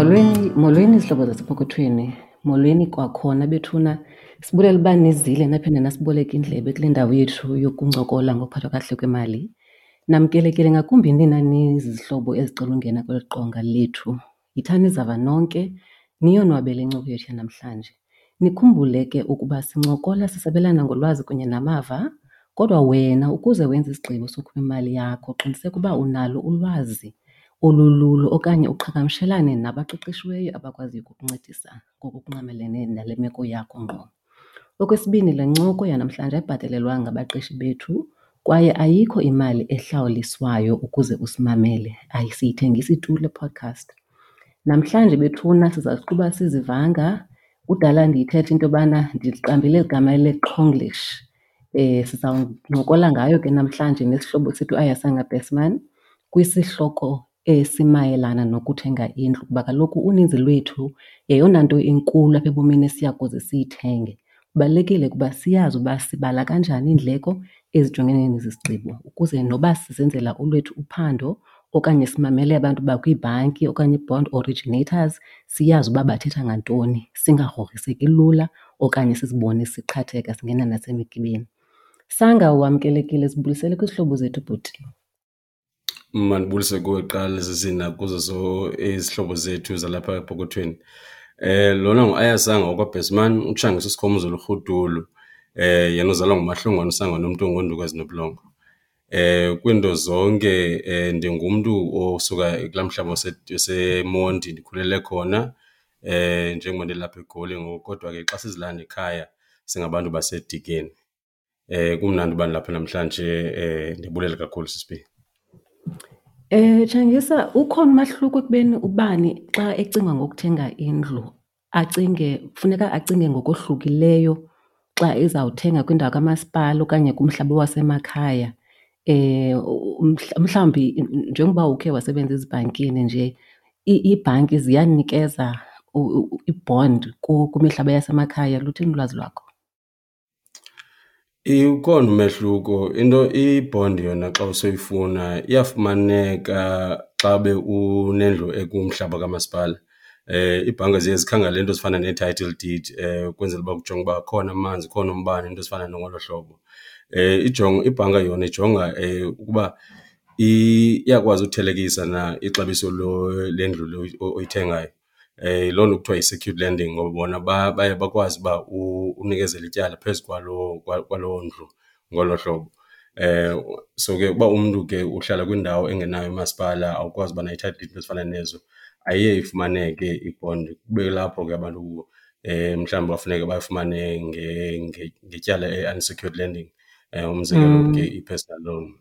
Molweni, molweni zihlobo zasepokothweni. Molweni kwakhona bethuna. Sibulela uba nizile naphinde nasiboleka indlebe kule ndawo yethu yokuncokola ngokuphathwa kakuhle kwemali. Namkelekile ngakumbi nina nizizihlobo ezicela ungena kweli qonga lethu. Yithani izava nonke, niyonwabele incoko yethu yanamhlanje. Nikhumbule ke ukuba sincokola sisabelana ngolwazi kunye namava, kodwa wena ukuze wenze isigqibo sokhupha imali yakho qiniseka uba unalo ulwazi olululo okanye uqhagamshelane nabaqeqeshiweyo abakwaziyo ukukuncedisa ngokungqamelene nale meko yakho ngqo. Okwesibini, le ncoko yanamhlanje ayibhatalelwanga ngabaqeshi bethu kwaye ayikho imali ehlawuliswayo ukuze usimamele, asiyithengisi tu le podcast. Namhlanje bethuna siza kuqhuba sizivanga. Kudala ndiyithetha into yobana ndiliqambile eli gama leQhonglish. Sizawuncokola ngayo ke namhlanje nesihlobo sethu uAyasanga Besman kwisihloko esimayelana nokuthenga indlu kuba kaloku uninzi lwethu yeyona nto inkulu apha ebomini esiya kuze siyithenge. Kubalulekile ukuba siyazi uba sibala kanjani iindleko ezijongene nesi sigqibo ukuze noba sizenzela olwethu uphando okanye simamele abantu bakwiibhanki okanye ii-bond originators siyazi uba bathetha ngantoni, singagrogriseki lula okanye sizibone siqhatheka singena nasemigibeni. Sanga, wamkelekile, sibulisele kwizihlobo zethu bhuti. Mandibulise kuwe kuqala sisi nakuzo izihlobo zethu zalapha epokothweni. Lona nguAyasanga wakwaBhesman, uTshangisa uSikhomuzolo uRhudulu, yena uzalwa nguMahlongwane uSangane umntu ongoonduku ezinobulongwe. Kwiinto zonke ndingumntu osuka kulaa mhlaba waseMonti, ndikhulele khona njengoba ndilapha eGoli ngoku kodwa ke xa sizilanda ekhaya singabantu baseDikeni. Kumnandi uba ndilapha namhlanje, ndibulela kakhulu sisi B. Tshangisa, ukhona umahluko ekubeni ubani xa ecinga ngokuthenga indlu acinge, funeka acinge ngokohlukileyo xa ezawuthenga kwindawo kamasipala okanye kumhlaba wasemakhaya? Mhlawumbi njengoba ukhe wasebenza ezibhankini nje, iibhanki ziyanikeza i-bond kwimihlaba yasemakhaya? Luthini ulwazi lwakho? Ukhona umehluko. Into i-bond yona xa usowuyifuna iyafumaneka xa ube unendlu ekumhlaba kamasipala. Iibhanka ziye zikhangele iinto ezifana nee-title deed ukwenzela uba kujongwe uba akhona amanzi, ukhona umbane, iinto ezifana ngolo hlobo. Ibhanka yona ijonga ukuba iyakwazi uthelekisa na ixabiso lendlu le oyithengayo. Yiloo nto kuthiwa yi-secured lending ngoba bona baye bakwazi uba unikezele ityala phezu kwaloo kwaloo ndlu ngolo hlobo. So ke uba umntu ke uhlala kwindawo engenaye umasipala, awukwazi uba nayo i-title deed, iinto ezifana nezo, ayiye ifumaneke i-bond. Kube kulapho ke abantu mhlawumbi bafuneke bafumane ngetyala i-unsecured lending, umzekelo ke i-personal loan.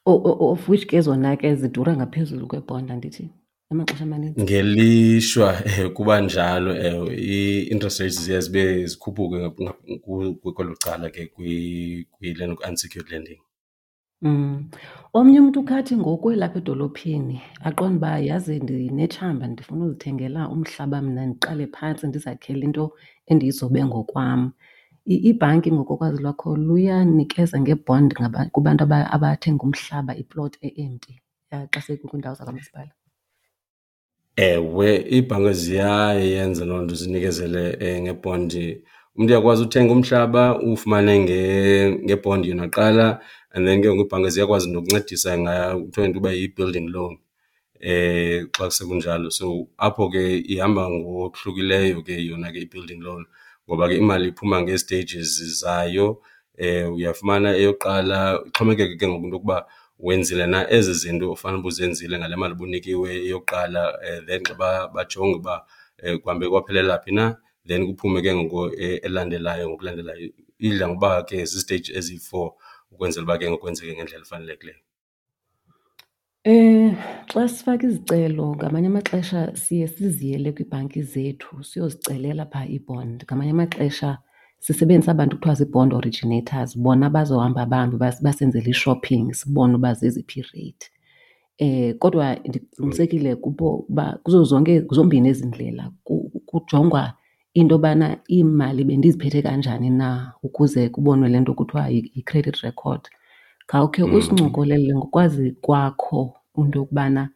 Of which ke zona ke zidura ngaphezulu kwebhonda, andithi, amaxesha amaninzi? Ngelishwa kuba njalo, ewe. Ii-interest rates ziye zibe zikhuphuke kwelo cala ke kwi-unsecured lending. Omnye umntu ukhathi ngoku elapha edolophini aqonde uba yazi ndinetshamba ndifuna uzithengela umhlaba mna ndiqale phantsi ndizakhele into endiyizobe ngokwam. Iibhanki ngokokwazi lwakho luyanikeza nge-bond kubantu abathenga umhlaba, iploti e-empty xa sekukwiindawo zakwamasipala? Ewe, iibhanka ziyayenza loo nto zinikezele ngebhondi. Umntu uyakwazi uthenga umhlaba uwufumane ngebhondi yona kuqala and then ke ngoku iibhanka ziyakwazi nokuncedisa ngayo, kuthiwa yinto yoba yi-building loan xa sekunjalo. So apho ke ihamba ngokuhlukileyo ke yona ke i-building loan ngoba ke imali iphuma ngee-stages zayo. Uyafumana eyokuqala, ixhomekeke ke ngoku into yokuba wenzile na ezi zinto ufanele uba uzenzile ngale mali ubuyinikiwe eyokuqala. Then xa bajonge uba kuhambe kwaphelela phi na, then kuphume ke ngoku elandelayo ngokulandelayo. Idla ngokuba ke ziziteyiji eziyi-four ukwenzela uba ke ngoku kwenzeke ngendlela efanelekileyo. Xa sifaka izicelo ngamanye amaxesha siye siziyele kwiibhanki zethu siyozicelela phaa ii-bond. Ngamanye amaxesha sisebenzisa aba bantu kuthiwa zii-bond originators, bona bazohamba bahambe basenzele i-shopping sibone uba zeziphi iireyithi. Kodwa ndiqinisekile kubo uba kuzo zonke, zombini ezi ndlela kujongwa into yobana iimali bendiziphethe kanjani na ukuze kubonwe le nto kuthiwa yi-credit record. Khawukhe usincokolele ngokwazi kwakho into yokubana.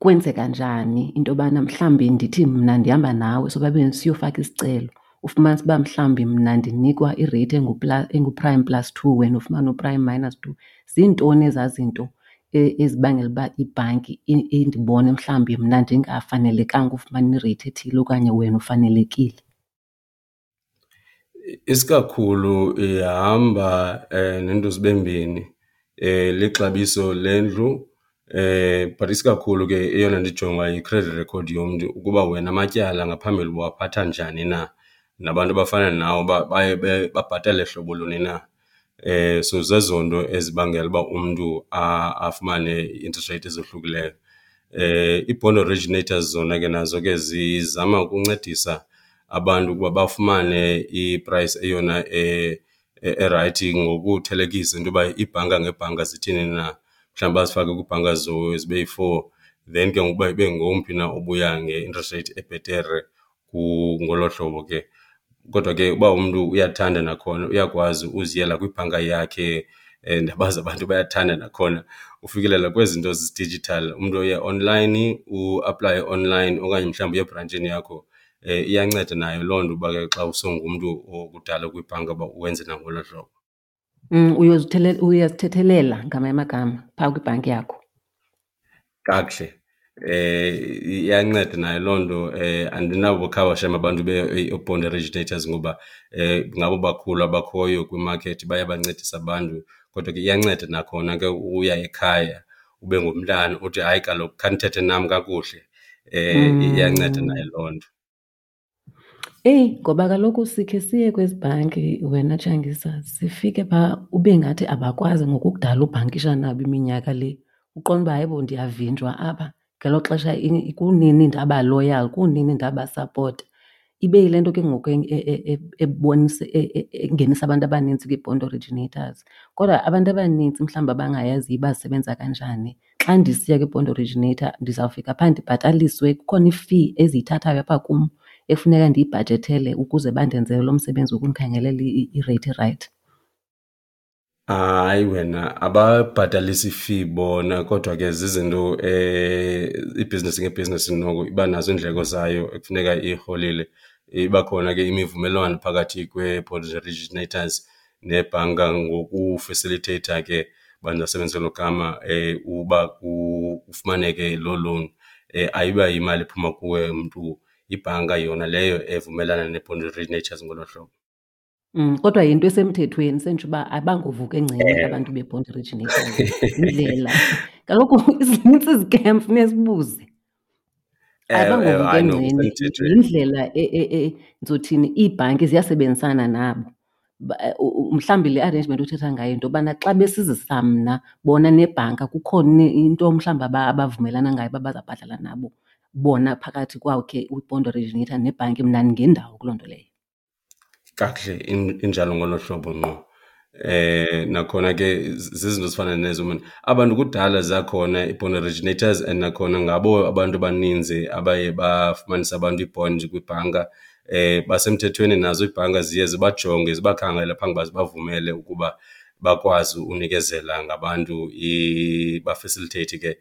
Kwenzeka njani into yobana mhlawumbi ndithi mna ndihamba nawe sobabini siyofaka isicelo, ufumanise uba mhlawumbi mna ndinikwa ireythi engu-prime plus 2 wena ufumane u-prime minus 2? Ziintoni ezaa zinto ezibangela uba ibhanki indibone mhlawumbi mna ndingafanelekanga ufumana ireythi ethile okanye wena ufanelekile? Isikakhulu ihamba neento zibe mbini, lixabiso lendlu but isikakhulu ke eyona nto ijongwayo yi-credit record yomntu ukuba wena amatyala ngaphambili ubuwaphatha njani na, nabantu abafana nawe uba baye babhatale hlobo luni na. So zezo nto ezibangela uba umntu afumane ii-interest rate ezohlukileyo. Ii-bond originators zona ke nazo ke zizama ukuncedisa abantu ukuba bafumane i-price eyona erayithi ngokuthelekisa into yoba iibhanka ngeebhanka zithini na. Mhlawumbi bazifake kwiibhanka zibe yi-four then ke ngoku uba ibe ngomphi na obuya nge-interest rate ebhetere ngolo hlobo ke. Kodwa ke uba umntu uyathanda nakhona uyakwazi uziyela kwibhanka yakhe, ndiyabazi abantu bayathanda nakhona ufikelela kwezi zinto zi-digital. Umntu uye online, uaplaye online okanye mhlawumbi uye ebrantshini yakho. Iyanceda nayo loo nto uba ke xa usongumntu okudala kwibhanka uba wenze nangolo hlobo. Uyazithethelela ngamanye amagama phaa kwibhanki yakho. Kakuhle. Iyanceda nayo loo nto. Andinabo khaba shem abantu bee-bond originators ngoba ngabo bakhulu abakhoyo kwimakethi, bayabancedisa abantu. Kodwa ke iyanceda nakhona ke uya ekhaya ube ngumntana uthi, hayi kaloku khanithethe nam kakuhle. Iyanceda nayo loo nto. Eyi, ngoba kaloku sikhe siye kwezi bhanki wena Tshangisa, sifike phaa ube ngathi abakwazi ngokukudala ubhankisha nabo iminyaka le. Uqonde uba hayibo ndiyavinjwa apha, ngelo xesha kunini ndaba loyal, kunini ndabasapota. Ibe yile nto ke ngoku ebonisa, engenisa abantu abanintsi kwii-bond originators. Kodwa abantu abanintsi mhlawumbi abangayaziyo uba zisebenza kanjani, xa ndisiya kwi-bond originator ndizawufika phaa ndibhataliswe, kukhona i-fee eziyithathayo apha kum ekufuneka ndiyibhajethele ukuze bandenzele lo msebenzi wokundikhangelela ireythi erayithi. Hayi wena, ababhatalisi fee bona kodwa ke zizinto ibhizinesi ngebhizinesi noko iba nazo iindleko zayo ekufuneka iyirholile. Iba khona ke imivumelwano phakathi kwee-bond originators nebhanka ngokufesilitheyitha ke, uba ndingasebenzisa elo gama, uba kufumaneke loo loan. Ayiba yimali ephuma kuwe mntu, yibhanka yona leyo evumelana nee-bond originators ngolo hlobo. Kodwa yinto esemthethweni, senditsho uba abangovuka engceni abantu bee-bond originators. Yindlela. Kaloku zinintsi izikem, funeka sibuze. Abangovuka Hayi, no, engceni, kusemthethweni. yindlela ndizothini, iibhanki ziyasebenzisana nabo. Mhlawumbi le arrangement othetha ngayo yinto yobana xa besizisa mna bona nebhanka kukhona into mhlawumbi abavumelana ngayo uba bazawubhatala nabo bona phakathi kwakhe i-bond originator nebhanki, mna ndingendawo kuloo nto leyo. Kakuhle, injalo ngolo hlobo ngqo. Nakhona ke zizinto ezifana nezo, man. Abantu kudala zakhona ii-bond originators and nakhona ngabo abantu abaninzi abaye bafumanisa abantu ii-bond kwibhanka. Basemthethweni nazo iibhanka ziye zibajonge zibakhangele phambi uba zibavumele ukuba bakwazi unikezela ngabantu, bafasilitheyithe ke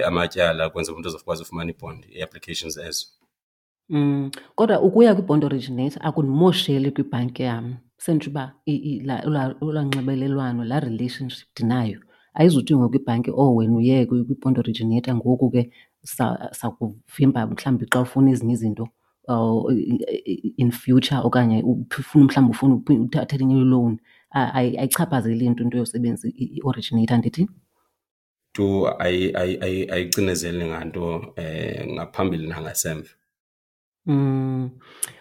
amatyala ukwenzela umntu azokwazi ufumana i-bond, ii-applications ezo. Kodwa ukuya kwi-bond originator akundimosheli kwibhanki yam. Senditsho uba olwaa nxibelelwano, laa relationship ndinayo ayizuthi ngoku ibhanki, oh wena uye kwi-bond originator ngoku ke sakuvimba mhlawumbi xa ufuna ezinye izinto in future okanye ufuna mhlawumbi ufuna uthatha elinye i-loan. Ayichaphazeli nto into yosebenzisa i-originator, andithi? Tu ayicinezeli nganto ngaphambili nangasemva.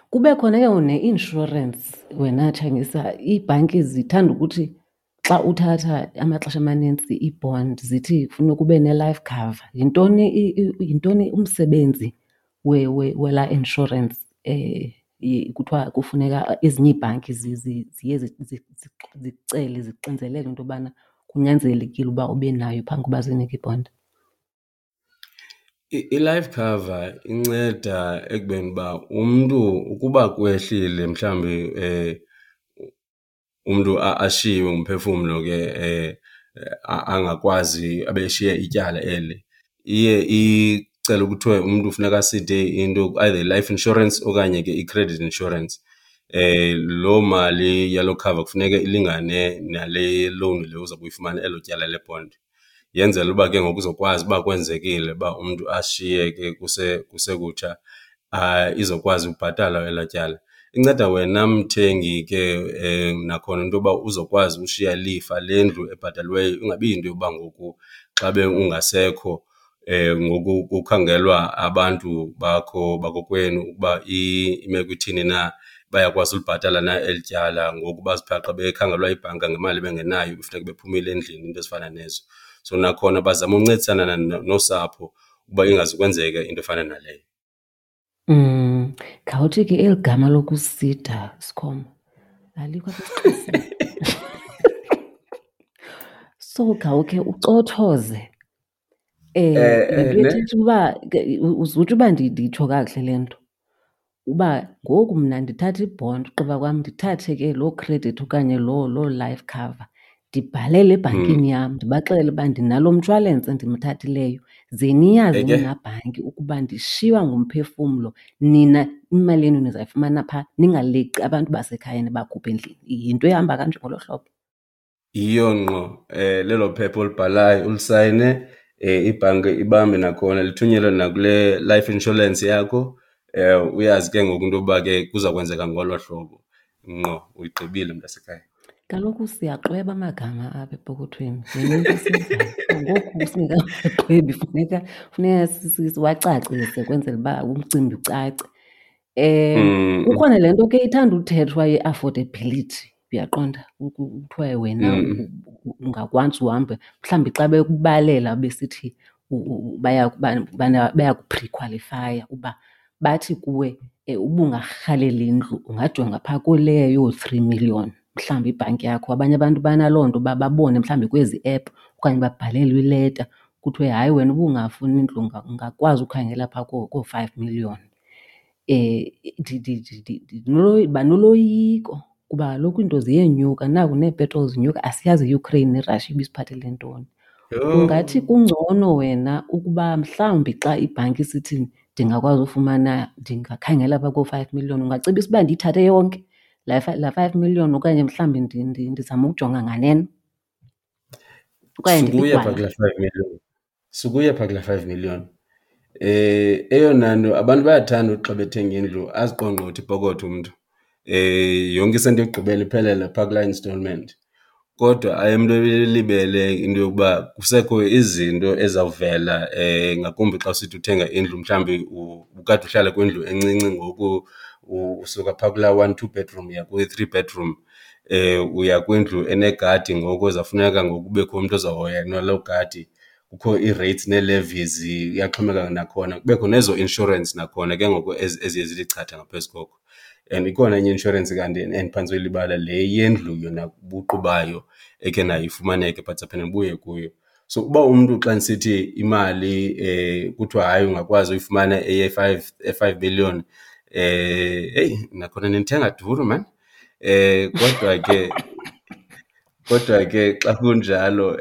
Kube khona ke ngoku ne-insurance wena Tshangisa. Iibhanki zithanda ukuthi xa uthatha amaxesha amanintsi ii-bond zithi kufuneka ube ne-life cover. Yintoni umsebenzi welaa insurance, kuthiwa kufuneka ezinye iibhanki ziye zicele, zixinzelele into yobana kunyanzelekile uba ube nayo phambi koba zinike ibhondi? I-life cover inceda ekubeni uba umntu ukuba kwehlile mhlawumbi umntu ashiywe ngumphefumlo ke angakwazi abe eshiye ityala eli, iye Kucela kuthiwe umntu funeka aside into either i-life insurance okanye ke i-credit insurance. Loo mali yaloo cover kufuneka ilingane nale loan le uzawube uyifumana, elo tyala le-bond. Yenzela uba ke ngoku uzokwazi uba kwenzekile uba umntu ashiyeke kusekutsha izokwazi ubhatalwa elaa tyala. Inceda wena mthengi ke nakhona into yoba uzokwazi ushiya ilifa lendlu ebhataliweyo, ingabi yinto yoba ngoku xa ungasekho ngoku kukhangelwa abantu bakho bakokwenu ukuba imeko ithini na, bayakwazi ulibhatala na eli tyala. Ngoku bazibhaqe bekhangelwa yibhanka ngemali ebengenayo kufuneka bephumile endlini, iinto ezifana nezo. So nakhona bazama uncedisana nosapho ukuba ingazukwenzeka into efana naleyo. Khawuthi ke eli gama lokusida, Sikhoma, alikho apha esiXhoseni. So khawukhe ucothoze. Le nto ithetha uba uzutsho uba nditsho kakuhle le nto, uba ngoku mna ndithatha i-bond ugqiba kwam ndithathe ke loo credit okanye loo life cover ndibhalele ebhankini yam ndibaxelele uba ndinalo mshwalense ndimthathileyo, ze niyazi nina bhanki ukuba ndishiywa ngumphefumlo, nina imali yenu nizayifumana phaa, ningaleqi abantu basekhaya nibakhuphe endlini. Yinto ehamba kanje ngolo hlobo? Yiyo ngqo, lelo phepha olibhalayo ulisayine, ibhanki ibambe nakhona lithunyelwe nakule life insurance yakho. Uyazi ke ngoku into yokuba ke kuza kwenzeka ngolo hlobo. Ngqo, uyigqibile mntasekhaya. Kaloku siyaxweba amagama apha epokothweni, yinto into esiyenzayo. Ngoku singekaxwebi funeka siwacacise kwenzela uba umcimbi ucace. Kukhona le nto ke ithanda uthethwa ye-affordability, uyaqonda? Kuthiwe wena ungakwazi uhambe, mhlawumbi xa bekubalela besithi bayakuphrikhwalifaya uba bathi kuwe uba ungarhalela indlu ungajonga phaa kuleyo yoo-three million mhlawumbi ibhanki yakho. Abanye abantu banaloo nto uba babone mhlawumbi kwezi app okanye babhalelwe ileta kuthiwe hayi wena uba ungafuna indlu ungakwazi ukhangela phaa koo-five million. Ndiba noloyiko kuba kaloku iinto ziyenyuka, naku neepetroli zinyuka, asiyazi iUkraine neRussia ibisiphathele ntoni. Ungathi kungcono wena ukuba mhlawumbi xa ibhanki isithi ndingakwazi ufumana, ndingakhangela phaa koo-five million, ungacebisa uba ndiyithathe yonke laa 5 million okanye mhlawumbi ndizame ukujonga nganeno? Okanye Sukuya phaa ndiligwala? kulaa 5 million. Sukuya phaa kulaa 5 million. Eyona nto abantu bayathanda uthi xa bethenga indlu aziqongqothe ipokotho umntu. Yonke isenti yokugqibela iphelele phaa kulaa installment. Kodwa aye umntu elibele into yokuba kusekho izinto ezizawuvela ngakumbi xa usithi uthenga indlu mhlawumbi ubukade uhlala kwindlu encinci ngoku usuka phaa kulaa one, two bedroom uya kwi-three bedroom. Uya kwindlu enegadi ngoku ezawufuneka ngoku kubekho umntu ozawuhoya naloo gadi. Kukho ii-rates nee-levies, iyaxhomekeka nakhona. Kubekho nezo insurance nakhona ke ngoku eziye zithi chatha ngaphezu koko. And ikhona enye i-inshorensi kanti endiphantse uyilibala, le yendlu yona buqu bayo ekhe nayo ifumaneke but sawuphinda ndibuye kuyo. So uba umntu xa ndisithi imali kuthiwa hayi ungakwazi uyifumana eye-five million, heyi nakhona nindithenga duru maan. Kodwa ke xa kunjalo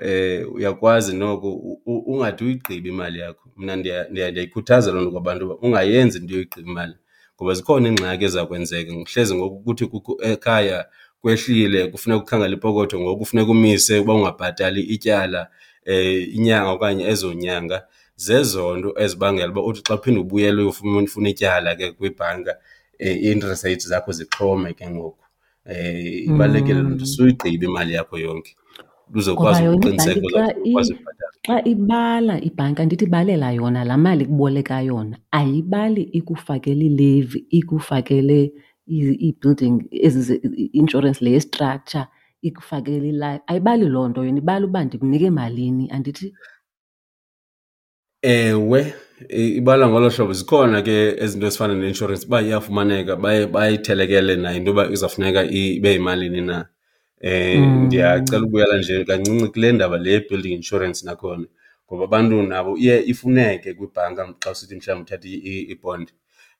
uyakwazi noko ungade uyigqibe imali yakho. Mna ndiyayikhuthaza loo nto kwabantu uba ungayenzi into yoyigqiba imali ngoba zikhona iingxaki eziza kwenzeka. Hleze ngoku kuthi kukho ekhaya kwehlile kufuneka ukhangele ipokotho ngoku kufuneka umise uba ungabhatali ityala inyanga okanye ezo nyanga. Zezo nto ezibangela uba uthi xa uphinda ubuyela uyofuna ityala ke kwibhanka ii-interest rates zakho zixhome ke ngoku. Ibalulekile loo nto, suyigqiba imali yakho yonke uzokwazi Ngoba yona ukuqiniseka ibhanki xa uzawukwazi ukubhatala. Xa ibala ibhanki, andithi ibalela yona laa mali ikuboleka yona, ayibali ikufakele ilevi, ikufakele ii-building ezi i-insurance le ye-structure, ikufakele ilife. Ayibali loo nto yona, ibala uba ndikunike malini, andithi? Ewe, ibala ngolo hlobo. Zikhona ke ezinto ezifana ne-insurance uba iyafumaneka baye bayithelekele nayo into yoba izawufuneka ibe yimalini na. Ndiyacela ukubuyela nje kancinci kule ndaba le ye-building insurance nakhona, ngoba abantu nabo iye ifuneke kwibhanka xa usithi mhlawumbi uthatha i-bond.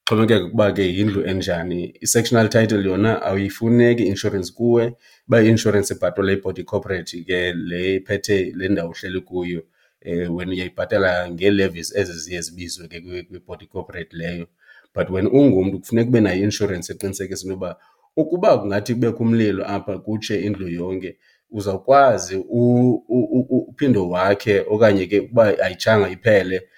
Xhomekeka ukuba ke yindlu enjani. I-sectional title yona ayifuneki i-insurance kuwe, uba i-insurance ibhatalwa yibody corporate ke le iphethe le ndawo uhleli kuyo. Wena uyayibhatala ngee-levies ezi ziye zibizwe ke kwi-body corporate leyo. But wena ungumntu kufuneka ube nayo i-inshorensi eqinisekisa into yoba ukuba kungathi kubekho umlilo apha kutshe indlu yonke uzawukwazi uphinde wakhe okanye ke ukuba ayitshanga iphele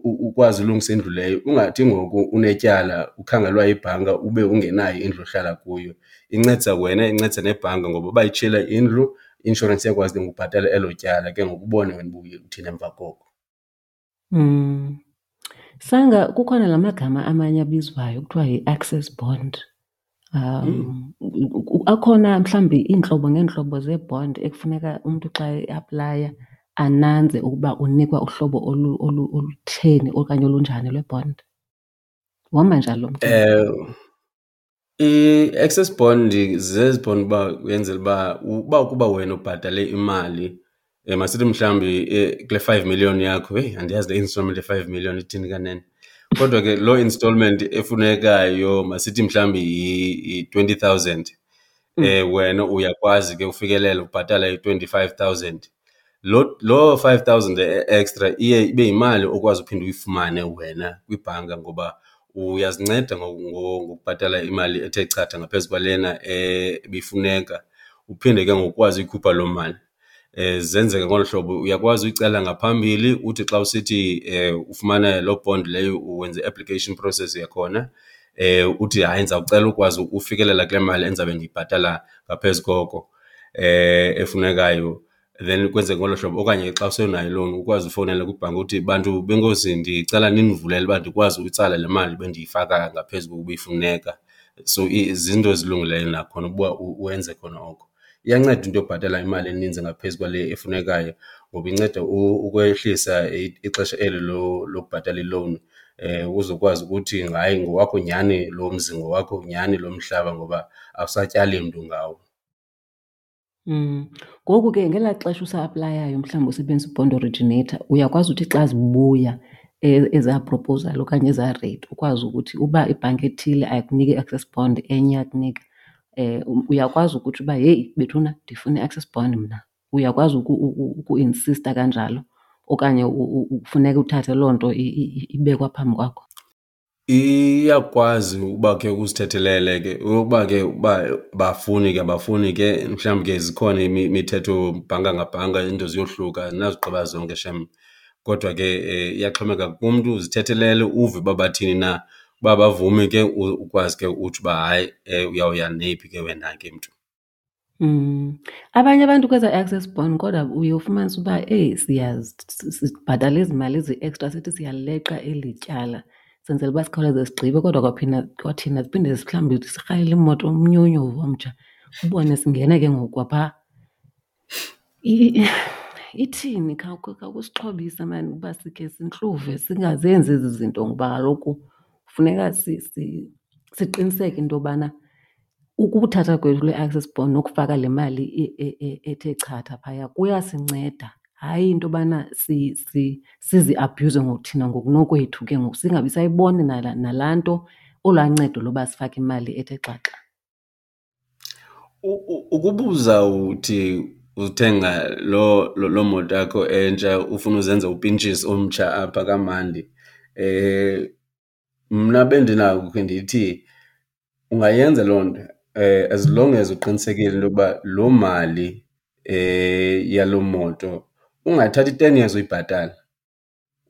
ukwazi ulungisa indlu leyo. Ungathi ngoku unetyala ukhangelwa yibhanka ube ungenayo indlu ohlala kuyo. Incedisa wena, incedisa nebhanka ngoba uba itshile indlu i-inshorensi iyakwazi ke ngoku ubhatala elo tyala ke ngoku ubone wena uba uye uthini emva koko. Sanga kukhona la magama amanye abizwayo kuthiwa yi-access bond. Akhona mhlawumbi iintlobo ngeentlobo zee-bond ekufuneka umntu xa eaplaya ananze ukuba unikwa uhlobo olutheni okanye olunjani lwe-bond? Uhamba njani lo mcimbi? I-access bond zezi bond uba uyenzela uba uba ukuba wena ubhatale imali, masithi mhlawumbi kule 5 million yakho, heyi andiyazi le installment ye-5 million ithini kanene. Kodwa ke loo installment efunekayo masithi mhlawumbi yi-20,000, wena uyakwazi ke ufikelela ubhatala i-25,000. Loo 5,000 extra iye ibe yimali okwazi uphinda uyifumane wena kwibhanka ngoba uyazinceda ngokubhatala imali ethe chatha ngaphezu kwalena ebifuneka, uphinde ke ngoku ukwazi uyikhupha loo mali. Zenzeka ngolu hlobo, uyakwazi uyicela ngaphambili uthi xa usithi ufumana loo bond leyo wenze i-application process yakhona, uthi hayi ndizawucela ukwazi ufikelela kule mali endizabe ndiyibhatala ngaphezu koko efunekayo. Then kwenzeke ngolo hlobo. Okanye xa usenayo ilowuni ukwazi ufowunela kwibhanki uthi, bantu benkosi ndicela nindivulele uba ndikwazi uyitsala le mali bendiyifaka ngaphezu kokuba ifuneka. So zinto ezilungileyo nakhona ukuba wenze khona oko. Iyanceda into yobhatala imali eninzi ngaphezu kwale efunekayo ngoba inceda ukwehlisa ixesha eli lokubhatala ilowuni, uzokwazi ukuthi hayi ngowakho nyhani lo mzi, ngowakho nyhani lo mhlaba ngoba awusatyali mntu ngawo. Ngoku ke ngelaa xesha usa-aplayayo mhlawumbi usebenzisa i-bond originator, uyakwazi uthi xa zibuya ezaa proposal okanye ezaa rate ukwazi ukuthi uba ibhanki ethile ayikuniki i-access bond enye iyakunika, uyakwazi ukuthi uba heyi bethuna ndifuna i-access bond mna. Uyakwazi ukuinsista kanjalo okanye kufuneka uthathe loo nto ibekwa phambi kwakho? Iyakwazi uba ke uzithethelele ke uba ke uba bafuni ke abafuni ke mhlawumbi ke zikhona imithetho bhanka ngabhanka iinto ziyohluka, andinazigqiba zonke shem. Kodwa ke iyaxhomekeka kumntu, uzithethelele uve uba bathini na. Uba abavumi ke ukwazi ke utsho uba hayi uyawuya neyiphi ke wena ke mntu. Abanye abantu kweza access bond kodwa uye ufumanise uba eyi sibhatala ezi mali ezi-extra sithi siyaleqa eli tyala senzela uba sikhawuleze sigqibe, kodwa kwaphinda kwathina siphinde mhlawumbi sirhalele imoto umnyonyovu omtsha ubone singena ke ngoku kwaphaa. Ithini? Khawusixhobise maan uba sikhe sintluve singazenzi ezi zinto ngoba kaloku funeka siqiniseke into yobana ukuthatha kwethu le access bond nokufaka le mali ethe chatha phaya kuyasinceda. Hayi into yobana siziabhuyuze ngokuthina ngokunokwethu ke ngoku singabi sayibona nalaa nto, olwaa ncedo loba sifake imali ethe xaxa. Ukuba uzawuthi uthenga loo moto yakho entsha ufuna uzenza upintshisi omtsha apha kamandi, mna bendinako ukhe ndithi ungayenza loo nto as long as uqinisekile into yokuba loo mali yaloo moto ungathathi i-10 years uyibhatala.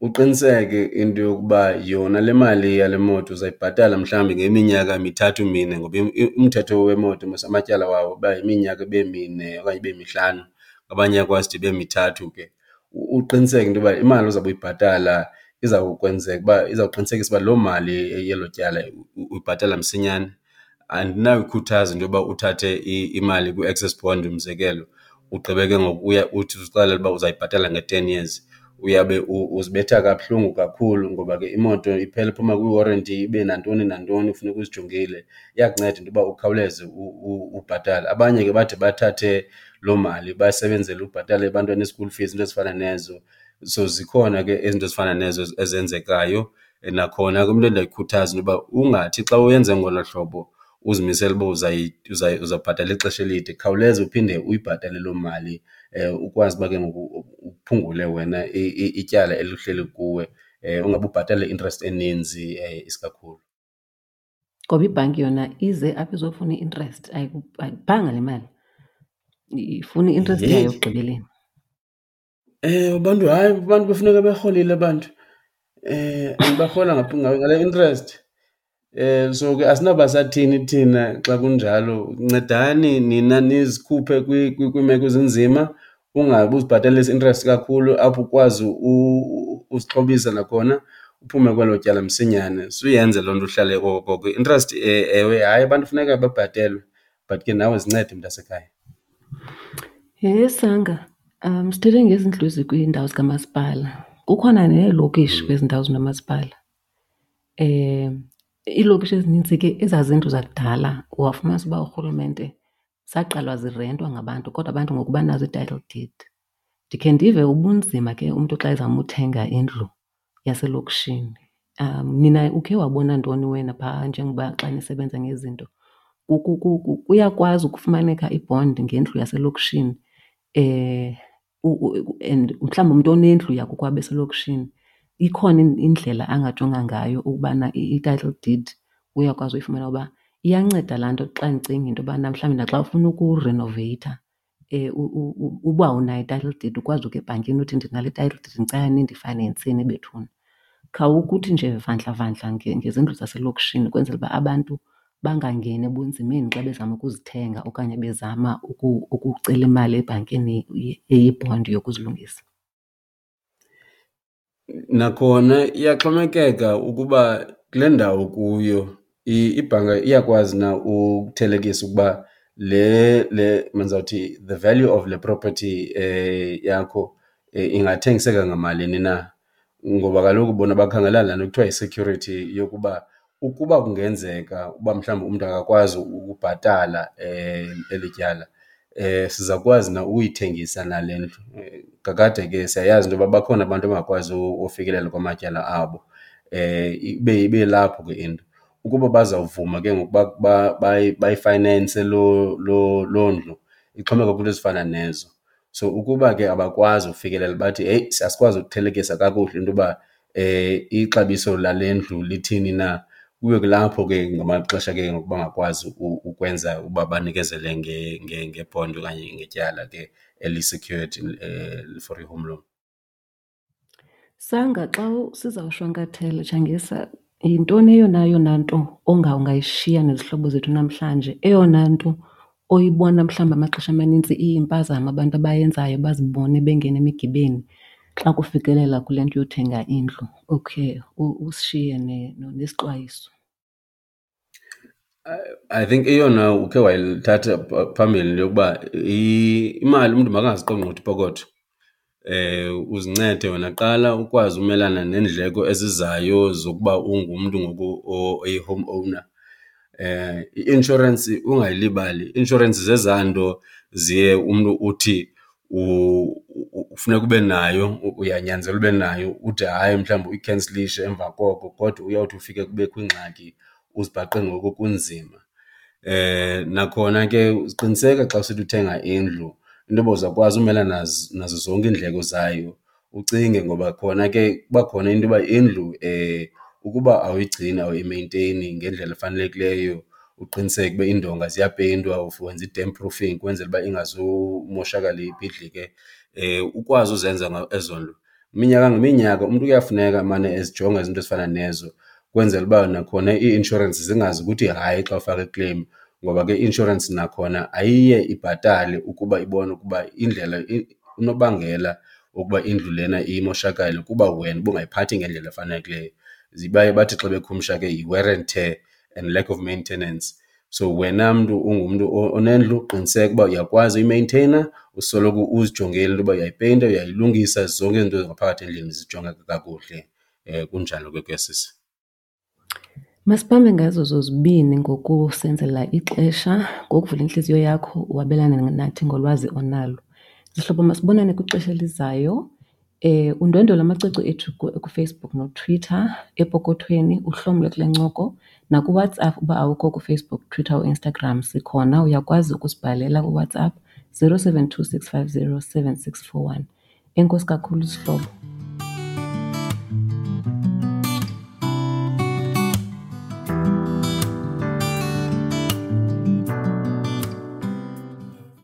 Uqiniseke into yokuba yona le mali yale moto uzayibhatala mhlawumbi ngeminyaka mithathu mine, ngoba umthetho wemoto mos amatyala wawo uba yiminyaka ibe mine okanye ibe mihlanu, abanye iyakwazi ude ibe mithathu ke. Uqiniseke into yoba imali ozawube uyibhatala izawukwenzeka uba izawuqinisekisa uba loo mali yelo tyala uyibhatala msinyane. Andinayikhuthaza into yoba uthathe imali kwi-access bond umzekelo, ugqibe ke ngoku uya uthi uzixelele uba uzayibhatala nge-10 years. Uyabe uzibetha kabuhlungu kakhulu ngoba ke imoto iphela iphuma kwi-warranty ibe nantoni nantoni funeka uzijongile. Iyakunceda into yoba ukhawuleze ubhatale. Abanye ke bade bathathe loo mali basebenzele ubhatala ebantwana i-school fees, iinto ezifana nezo. So zikhona ke izinto ezifana nezo ezenzekayo. Nakhona ke umntu endiyayikhuthaza into yoba ungathi xa uyenze ngolo hlobo uzimisele uba uzawubhatala ixesha elide, khawuleza uphinde uyibhatale loo mali. Ukwazi uba ke ngoku uphungule wena ityala elihleli kuwe, ungabe ubhatala i-interest eninzi isikakhulu. Ngoba ibhanki yona ize apha izofuna i-interest, ayikuphanga le mali, ifuna i-interest yayo ekugqibeleni. Ewe, abantu hayi, abantu kufuneka berholile abantu and barhola ngale interest. So ke asinawuba sathini thina xa kunjalo. Ncedani nina nizikhuphe kwiimeko ezinzima, ungabi uzibhatalisa i-interest kakhulu apho ukwazi uzixhobisa nakhona uphume kwelo tyala msinyane. Suyenze loo nto uhlale oko koko. I-interest ewe, hayi abantu funeka bebhatelwe but ke nawe zincede mntasekhaya. Yhe Sanga, sithethe ngezindlu ezikwiindawo zikamasipala. Kukhona neelokishi kwezi ndawo zinomasipala. Iilokishi ezinintsi ke ezaa zindlu zakudala wafumanisa uba urhulumente zaqalwa zirentwa ngabantu kodwa abantu ngoku banazo ii-title deed. Ndikhe ndive ubunzima ke umntu xa ezama uthenga indlu yaselokishini. Nina ukhe wabona ntoni wena phaa njengoba xa nisebenza ngezinto? Kuyakwazi ukufumaneka i-bond ngendlu yaselokishini and mhlawumbi umntu onendlu yakokwabo eselokishini ikhona indlela angajonga ngayo ukubana i-title deed uyakwazi uyifumana? Uba iyanceda laa nto xa ndicinga into yobana mhlawumbi naxa ufuna ukurenoveyitha uba unayo i-title deed ukwazi ukuya ebhankini uthi ndinale title deed ndicela nindifayinenseni bethuna. Khawukuthi nje vandla vandla ngezindlu zaselokishini ukwenzela uba abantu bangangeni ebunzimeni xa bezama ukuzithenga okanye bezama ukucela imali ebhankini eyibhondi yokuzilungisa. Nakhona iyaxhomekeka ukuba kule ndawo kuyo ibhanka iyakwazi na ukuthelekisa ukuba le mandizawuthi the value of le property yakho ingathengiseka ngamalini na. Ngoba kaloku bona bakhangela laa nto kuthiwa yi-security yokuba ukuba kungenzeka uba mhlawumbi umntu akakwazi ukubhatala eli tyala, sizawukwazi na ukuyithengisa na le ndlu. Kakade ke siyayazi into yoba bakhona abantu abangakwazi ufikelela kwamatyala abo, ibe lapho ke into. Ukuba bazawuvuma ke ngoku bayifayinense loo ndlu, ixhomekeka kwiinto ezifana nezo. So ukuba ke abakwazi ufikelela bathi heyi asikwazi ukuthelekisa kakuhle into yoba ixabiso lale ndlu lithini na, kube kulapho ke ngamaxesha ke ngoku bangakwazi ukwenza uba banikezele ngebhondi okanye ngetyala ke eli-secured for i-home loan. Sanga, xa sizawushwankathela Tshangisa, yintoni eyona yona nto ungayishiya nezihlobo zethu namhlanje? Eyona nto oyibona mhlawumbi amaxesha amanintsi iyimpazamo abantu abayenzayo bazibone bengena emigibeni xa kufikelela kule nto yothenga indlu? Okay, usishiye nesixwayiso. I think eyona ukhe wayithatha phambili into yokuba imali umntu makangaziqongqothi ipokotho. Uzincede wena kuqala ukwazi umelana neendleko ezizayo zokuba ungumntu ngoku oyi-home owner. I-inshorensi ungayilibali, i-inshorensi zezaa nto ziye umntu uthi ufuneka ube nayo, uyanyanzelwa ube nayo, ude hayi mhlawumbi uyikhensilishe emva koko kodwa uyawuthi ufike kubekho ingxaki uzibhaqe ngoku kunzima. Nakhona ke qiniseka xa usithi uthenga indlu into yoba uzawukwazi umelana nazo zonke iindleko zayo. Ucinge ngoba khona ke kuba khona into yoba indlu ukuba awuyigcini, awuyimeyinteyini ngendlela efanelekileyo, uqiniseke uba iindonga ziyapeyintwa, wenza i-damp proofing ukwenzela uba ingazumoshakala ibhidlike, ukwazi uzenza ezo nto. Minyaka ngeminyaka umntu kuyafuneka amane ezijonga izinto ezifana nezo ukwenzela uba nakhona ii-inshorensi zingazi ukuthi hayi xa ufaka i-claim, ngoba ke i-inshorensi nakhona ayiye ibhatale ukuba ibone ukuba indlela unobangela wokuba indlu lena imoshakale kuba wena ubungayiphathi ngendlela efanelekileyo. Baye bathi xa bekhumsha ke yi-wear and tear and lack of maintenance. So wena mntu ungumntu onendlu qiniseka uba uyakwazi uyimeyinteyina, usoloko uzijongile into yoba uyayipeyinta, uyayilungisa, zonke izinto ngaphakathi endlini zijongeke kakuhle. Kunjalo ke kuya sisi. Masibambe ngazo zozibini ngokusenzela ixesha, ngokuvula intliziyo yakho wabelane nathi ngolwazi onalo. Zihlobo, masibonane kwixesha elizayo. Undwendwele amacwecwe ethu kuFacebook noTwitter epokothweni, uhlomle kule ncoko. NakuWhatsApp uba awukho kuFacebook, Twitter, uInstagram sikhona, uyakwazi ukusibhalela kuWhatsApp. 072 650 7641. Enkosi kakhulu zihlobo.